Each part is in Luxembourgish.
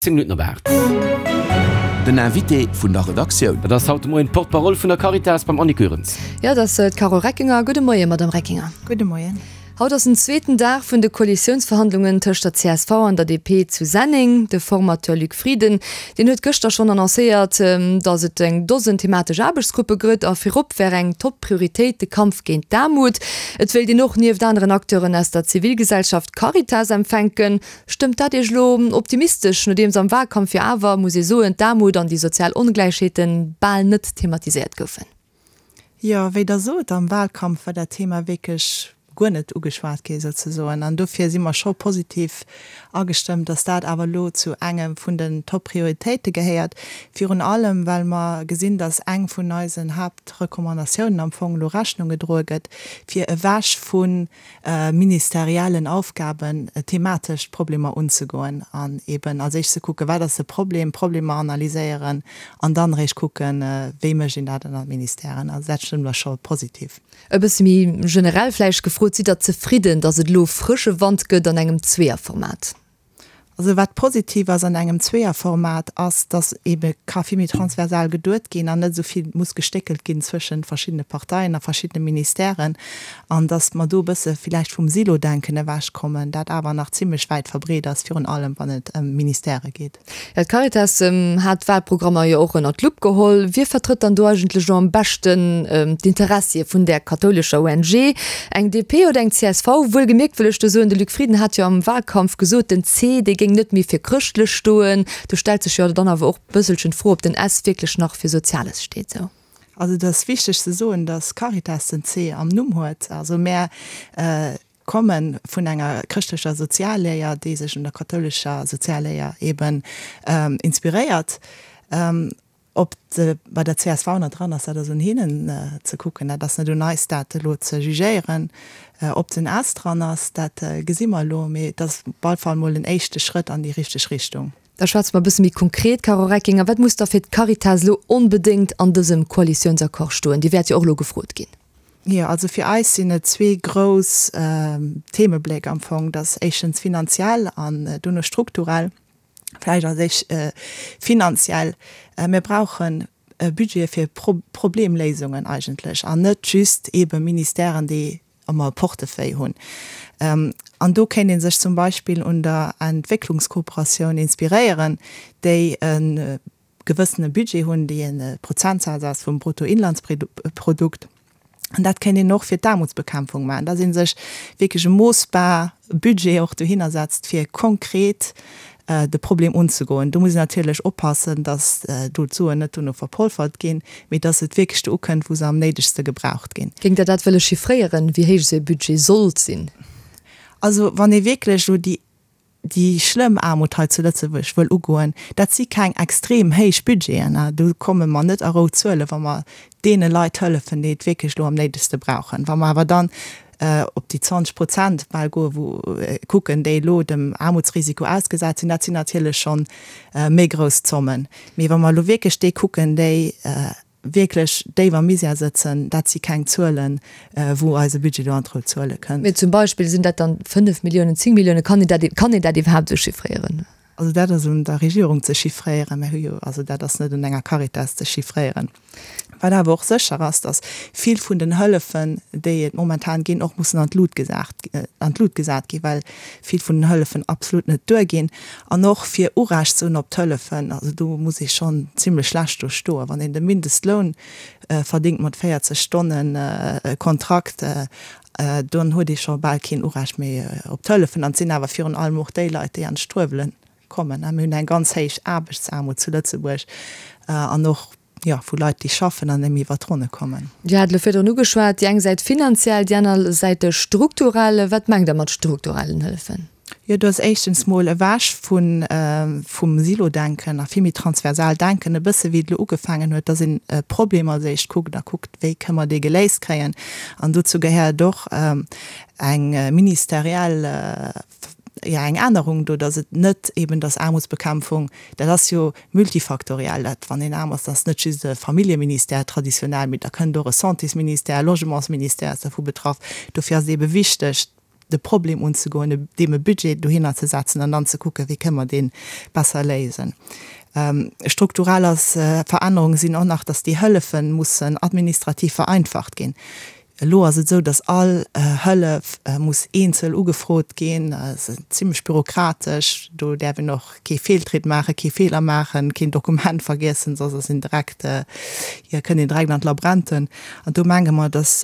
10 Minutten op 8. Den Invité vun der Redaktioun. Dat ass haut de Moien d'Porte-parole vun der Caritas beim Annick Goerens. Jo, dat ass d'Carole Reckinger. Gudde Moien, Madamm Reckinger. Gudde Moien. Haut ass den zweeten Dag vun de Koalitiounsverhandlungen tëscht der csv an der DP zu Senneng. De Formateur Luc Frieden, deen huet gëschter schonn annoncéiert, datt et eng Dosen thematesch Aarbechtsgruppe gëtt a virop wär eng Top-Prioritéit de Kampf géint d'Aarmut. Et wéilt een och nieft aneren Acteuren aus der Zivilgesellschaft d'Caritas empfänken. Stëmmt dat Iech elo optimistesch, nodeems am Wahlkampf jo awer, muss ee soen, d'Aarmut an déi sozial Ongläichheete bal net thematiséiert goufen? Jo, wéi Der sot, am Wahlkampf war dat Thema wierklech guer net ugeschwat gi souzesoen. An dofir si mer scho positiv agestëmmt, dass dat awer elo zu engem vun den Top-Prioritéite gehéiert. Virun allem, well mer gesinn, dass eng vun eisen Haaptrecommandatiounen am Fong elo Rechnung gedroe gëtt, fir ewech vu ministeriellen Aufgaben thematesch d'Problemer unzegoen an eben als éischt ze kucken, wat ass de Problem, d'Problemer analyséieren an dann eréischt kucken, wéi mécht een dat ënner Ministèren. Also dat stëmmt eis scho positiv. E bësse méi generell vläicht gefrot, Sidd Der zefridden, datt et elo frësche Wand gëtt an engem Zweeërformat? Also wat positiv ass an engem Zweeërformat ass, dass eebe ka vill méi transversal geduet ginn an net esou vill muss gestéckelt ginn zwëschent verschiddene Parteien a verschiddene Ministèren an dass mer do e bësse villäicht vum Silo-Denken ewechkommen, dat awer nach zimlech wäit verbreet ass, virun allem wann et ëm Ministèrë geet. Jo, d'Caritas hat d'Wahlprogrammer jo och ënnert d'Lupp geholl. Wie vertrëtt dann do eigentlech elo am beschten d'Interessie vun där kathoulescher ONG? Eng DP oder eng csv? Wuelgemierkt wëll ech do soen, de Luc Frieden hat jo am Wahlkampf gesot, den C, dee géing net méi fir chrëschtlech stoen. Do stellt sech jo dann awer och bësselchen d'Fro, ob den S wierklech nach fir Soziales steet. Sou. Also et ass wichteg ze soen, datt Caritas den C am Numm huet. Also mär komme vun enger chrëschtlecher Sozialléier, déi sech un der kathoulescher Sozialléier eben inspiréiert. Ob se bei der csv nach dran ass, dat ass un hinnen ze kucken. Dat ass net un eis, dat elo ze jugéieren. Ob den S dran ass, dat gesi mer elo. Mee et ass op alle Fall mol en éischte Schrëtt an déi richteg Richtung. Da schwätze mer e bësse méi konkret, Carole Reckinger. Wat muss da fir d'Caritas elo onbedéngt an dësem Koalitiounsaccord stoen? Dir wäert jo och elo gefrot ginn. Jo, also fir eis sinn et zwee grouss Themebléck am Fong. Dat ass éischtens finanziell an dono strukturell. Vläicht als éischt finanziell. Mir brauche Budgete fir Problemléisungen eigentlech an net just eebe Ministèren, déi ëmmer e Portefeuille hunn. An do kéint ee sech zum Beispill un der Entwécklungskooperatioun inspiréieren, déi e gewëssene Budget hunn, déi e Prozentsaz ass vum Bruttoinlandsprodukt. An dat kéint een och fir d'Aarmutsbekämpfung maachen, dass ee sech wierklech e moossbar Budget och dohinner setzt, fir konkret de Problem unzegoen. Do muss een natierlech oppassen, dass do d'Suen net dono verpolfert ginn, mee dass et wierklech do ukënnt, wou se am néidegste gebraucht ginn. Géingt Der dat wëlle chiffréieren, wéi héich esou e Budget sollt sinn? Also wann ee wierklech elo déi déi schlëmm Aarmut hei zu Lëtzebuerg wëll ugoen, dat si keng extrem héich Budgeten. Do komme mer net a rout Zuelen, wa mer deene Leit hëllefen, déi et wierklech elo am néidegste brauchen. Wa mer awer dann op déi 20 Prozent bal goen, wou kucken, déi elo dem Aarmutsrisiko ausgesat sinn, dat sinn natierlech scho méi grouss Zommen. Mee wa mer elo wierklech déi kucken, déi wierklech déif am Misär sëtzen, dat si keng Zuelen, wou eise Budget do an d'rout Zuele kënnt. Mee zum Beispill, sinn dat dann 5 Milliounen, 10 Milliounen? Kann een dat, kann een dat iwwerhaapt esou chiffréieren? Also dat ass un der Regierung ze chiffréieren. Mir hu jo, also dat ass net un enger Caritas ze chiffréieren. Wat awer och sécher ass, datt vill vun den Hëllefen, déi et momentan ginn, och mussen an d'Lut gesat, an d'Lut gesat ginn, well vill vun den Hëllefen absolut net duerginn. An och fir Urecht ze hunn op d'Hëllefen, also do muss ee schonn zimlech schlecht do stoen. Wann een de Mindestloun verdingt mat 40 Stonnen Kontrakt, dann huet ee scho bal keen Urecht méi op d'Hëllefen. An et sinn awer virun allem och déi Leit, déi an d'Struewele kommen. Mir hunn eng ganz héich Aarbechtsaarmut zu Lëtzebuerg an och, jo, vu Leit, déi schaffen an net méi iwwer d'Ronne kommen. Dir hat elo virdrun ugeschwat, déi eng Säit finanziell, déi aner Säit strukturell. Wat mengt Der mat strukturellen Hëllefen? Jo, do ass éischtens mol ewech vu vum Silo-Denken a vill méi transversal denken, e bësse wéi et elo ugefaangen huet, dass een e Problem als éischt kuckt a kuckt, wéi kënne mer dee geléist kréien. An dozou gehéiert och eng ministeriell jo, eng Ännerung do, dass et net eben, dass Aarmutsbekämpfung, dat ass jo multifaktoriell, dat wann een aarm ass, dat ass net just e Familljeministère traditionell, mee da kënnt och e Santésministère, e Logementsministère ass dervu betraff. Dofir ass et ebe wichteg. de Problem unzegoen, deem e Budget dohinner ze setzen an dann ze kucken, wéi kënne mer dee besser léisen. Strukturell ass Verännerunge sinn och nach, dass déi Hëllefe mussen administrativ vereinfacht ginn. Elo ass et esou, dass all Hëllef muss eenzel ugefrot ginn. Dat ass zimlech bürokratesch. Do däerf een och kee Feeltritt maachen, kee Feeler maachen, keen Dokument vergiessen, soss ass een direkt, jo, kënnt een direkt an d'Labränten. An do menge mer, dass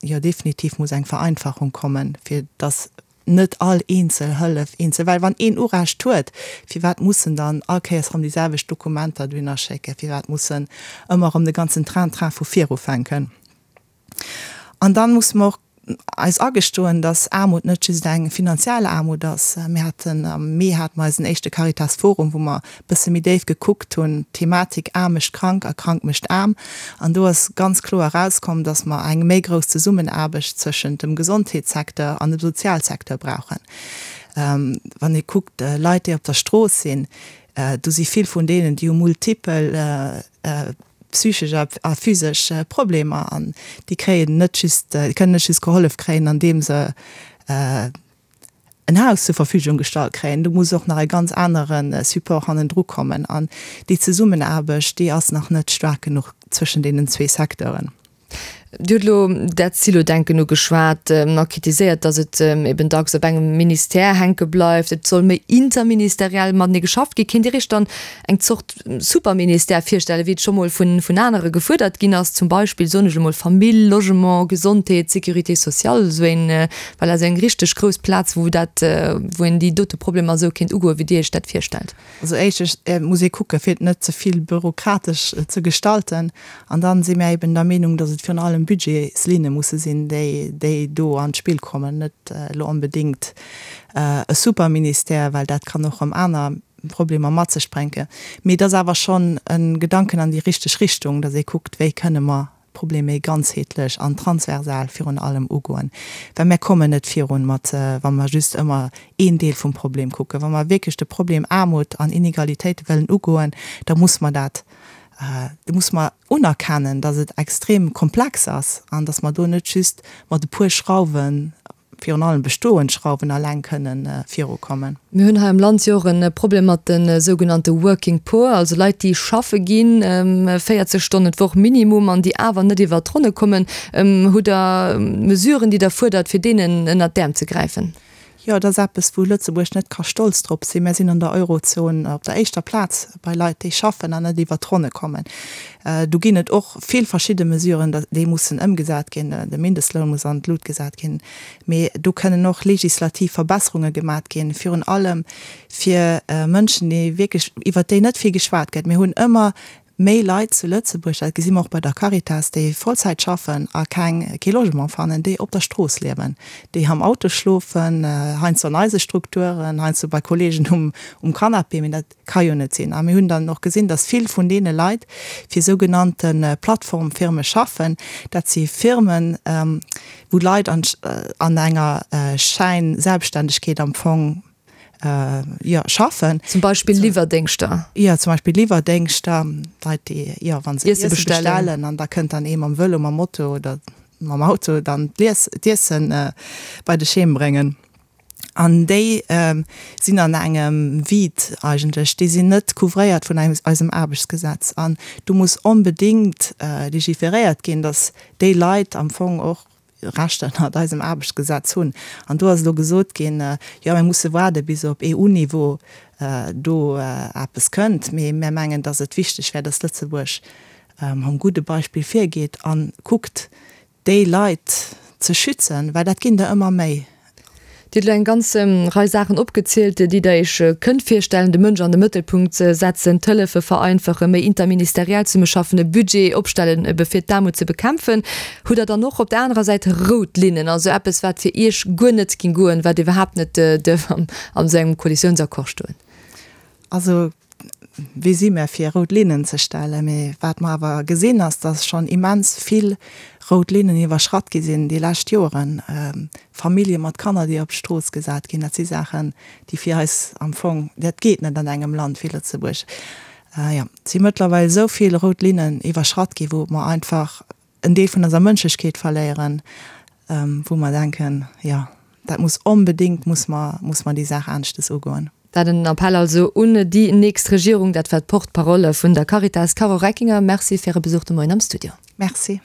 jo definitiv muss eng Vereinfachung kommen, fir dass net all eenzel Hëllef eenzel, well wann een Urecht huet, firwat muss en dann all Kéiers erëm déi selwecht Dokumenter dohinner schécken, firwat muss en ëmmer erëm de ganzen Train-Train vu vir ufänken? An dann musse mer och eis agestoen, dass Aarmut net just eng finanziell Aarmut ass. Mir haten am Mee hate mer eisen éischte Caritas Forum, wou mer e bësse méi déif gekuckt hunn, d'Thematik Aarm mécht krank a krank mécht aarm. An do ass ganz kloer erauskomm, dass mer eng méi grouss Zesummenaarbecht zwëschent dem Gesondheetssecteur an dem Sozialsecteur brauchen. Wann ee kuckt, Leit, déi op der Strooss sinn, do si vill vun deenen, déi hu multipel psychesch a physesch Problemer an déi kréien net just, déi kënnen net just gehollef kréien, andeem se en Haus zur Verfügung gestallt kréien. Do muss och nach e ganz anere Support hannendru kommen an déi Zesummenaarbecht, déi ass nach net staark genuch zwëschen deenen zwee Secteuren. Dir hutt elo dat Silodenken ugeschwat a kritiséiert, datt et eben dacks op engem Ministère hänke bleift. Et soll méi interministeriell matenee geschafft ginn. Kéint Dir Iech dann eng Zort Superministère virstellen, wéi et scho mol vun anere gefuerdert ginn ass, zum Beispill, soen ech elo mol, Famill, Logement, Gesondheet, Sécurité sociale, esou een, voilà, esou eng richteg grouss Plaz, wou dat, wou een déi dote Problemer esou kéint ugoen, wéi Dir Iech dat virstellt? Also éischtens muss ee kucke fir et net ze vill bürokratesch ze gestalten. An dann si mär eben der Meenung, datt et virun allem Budgetslinne musse sinn, déi déi do an d'Spill kommen, net elo onbedéngt e Superministère, well dat kann och erëm aner Problemer mat sech bréngen. Mee et ass awer schonn e Gedanken an déi richteg Richtung, datt ee kuckt, wéi kënne mer Problem méi ganzheetlech an transversal virun allem ugoen, well mär kommen net virun mat, wa mer just ëmmer een Deel vum Problem kucken. Wa mer wierklech de Problem Aarmut an Inegalitéite wëllen ugoen, da muss mer dat, da muss mer unerkennen, datt et extrem komplex ass an datt mer do net just mat e puer Schrauwen virun allem bestoend Schrauwen alleng kënnen virukommen. Mir hunn hei am Land jo och e Problem mat de sougenannte Working Poor, also Leit, déi schaffe ginn, 40 Stonnen d'Woch minimum, an déi awer net iwwert d'Ronne kommen. Hutt Der Mesuren, déi Der fuerdert, fir deenen ënnert d'Äerm ze gräifen? Jo, et ass eppes, wou Lëtzebuerg net ka stolz drop sinn. Mir sinn an der Eurozon op der éischter Plaz bei Leit, déi schaffen an net iwwert d'Ronne kommen. Do ginn et och vill verschidde Mesuren, déi mussen ëmgesat ginn. De Mindestloun muss an d'Lut gesat ginn. Mee do kënnen och legislativ Verbesserunge gemat ginn, virun allem fir Mënschen, déi wierklech, iwwert déi net vill geschwat gëtt. Mir hunn ëmmer méi Leit zu Lëtzebuerg, dat gesi mer och bei der Caritas, déi Vollzäit schaffen a keng, kee Logement fannen, déi op der Strooss liewen, déi am Auto schlofen, heiansdo an eise Strukturen, heiansdo bei Kollegen um Canapé. Mee dat Ka jo net sinn. A mir hunn dann och gesinn, dass vill vun deene Leit fir sougenannte Plattformfirme schaffen. Dat si Firmen, wou Leit an enger Schäinselbstständegkeet am Fong, jo, schaffen. Zum Beispill Liwwerdéngschter. Jo, zum Beispill Liwwerdéngschter, Leit, déi, jo, wa se Iesse bestellen an da kënnt dann ee mam Vëlo, mam Moto oder mam Auto dann d'Iesse bei dech heem bréngen. An déi sinn an engem Vide eigentlech, déi sinn net couvréiert vun eisem Aarbechtsgesetz. An do muss onbedéngt legiferéiert ginn, datt déi Leit am Fong och Rechter ënnert eisem Aarbechtsgesetz hunn. An do ass elo gesot ginn, jo mir musse waarde bis op EU-Niveau do eppes kënnt. Mee mir mengen, datt et wichteg wär, datt Lëtzebuerg mam gudde Beispill virgeet a kuckt, déi Leit ze schützen, well dat ginn der ëmmer méi. Dir hutt elo eng ganz Rei Saachen opgezielt, déi Der Iech kënnt virstellen, de Mënsch an de Mëttelpunkt setzen, d'Hëllefe vereinfachen, méi interministeriell zesummeschaffen, e Budget opstellen, ebe fir d'Aarmut ze bekämpfen. Hutt Der dann och op der anerer Säit rout Linnen, also eppes, wat fir Iech guer net géing goen, wat iwwerhaapt net duerf an esou engem Koalitiounsaccord stoen? Also Wie si mir, fir rout Linnen ze stellen? Mee wat mer awer gesinn, ass, dass schonn immens vill rout Linnen iwwerschratt gi sinn déi lescht Joren. Famillje mat Kanner, déi op d'Strooss gesat ginn, dat si Saachen, déi fir eis am Fong, dat geet net an engem Land wéi Lëtzebuerg. Jo, et si mëttlerweil esou vill rout Linnen iwwerschratt ginn, wou mer einfach en Deel vun eiser Mënschlechkeet verléieren, wou mer denken, jo. Dat muss onbedéngt, muss mer, muss mer déi Saach aneschtes ugoen. Dat en Appell also un déi nächst Regierung. Dat war d'Porte-parole vun der Caritas, Carole Reckinger. Merci fir Äre Besuch de Moien am Studio. Merci.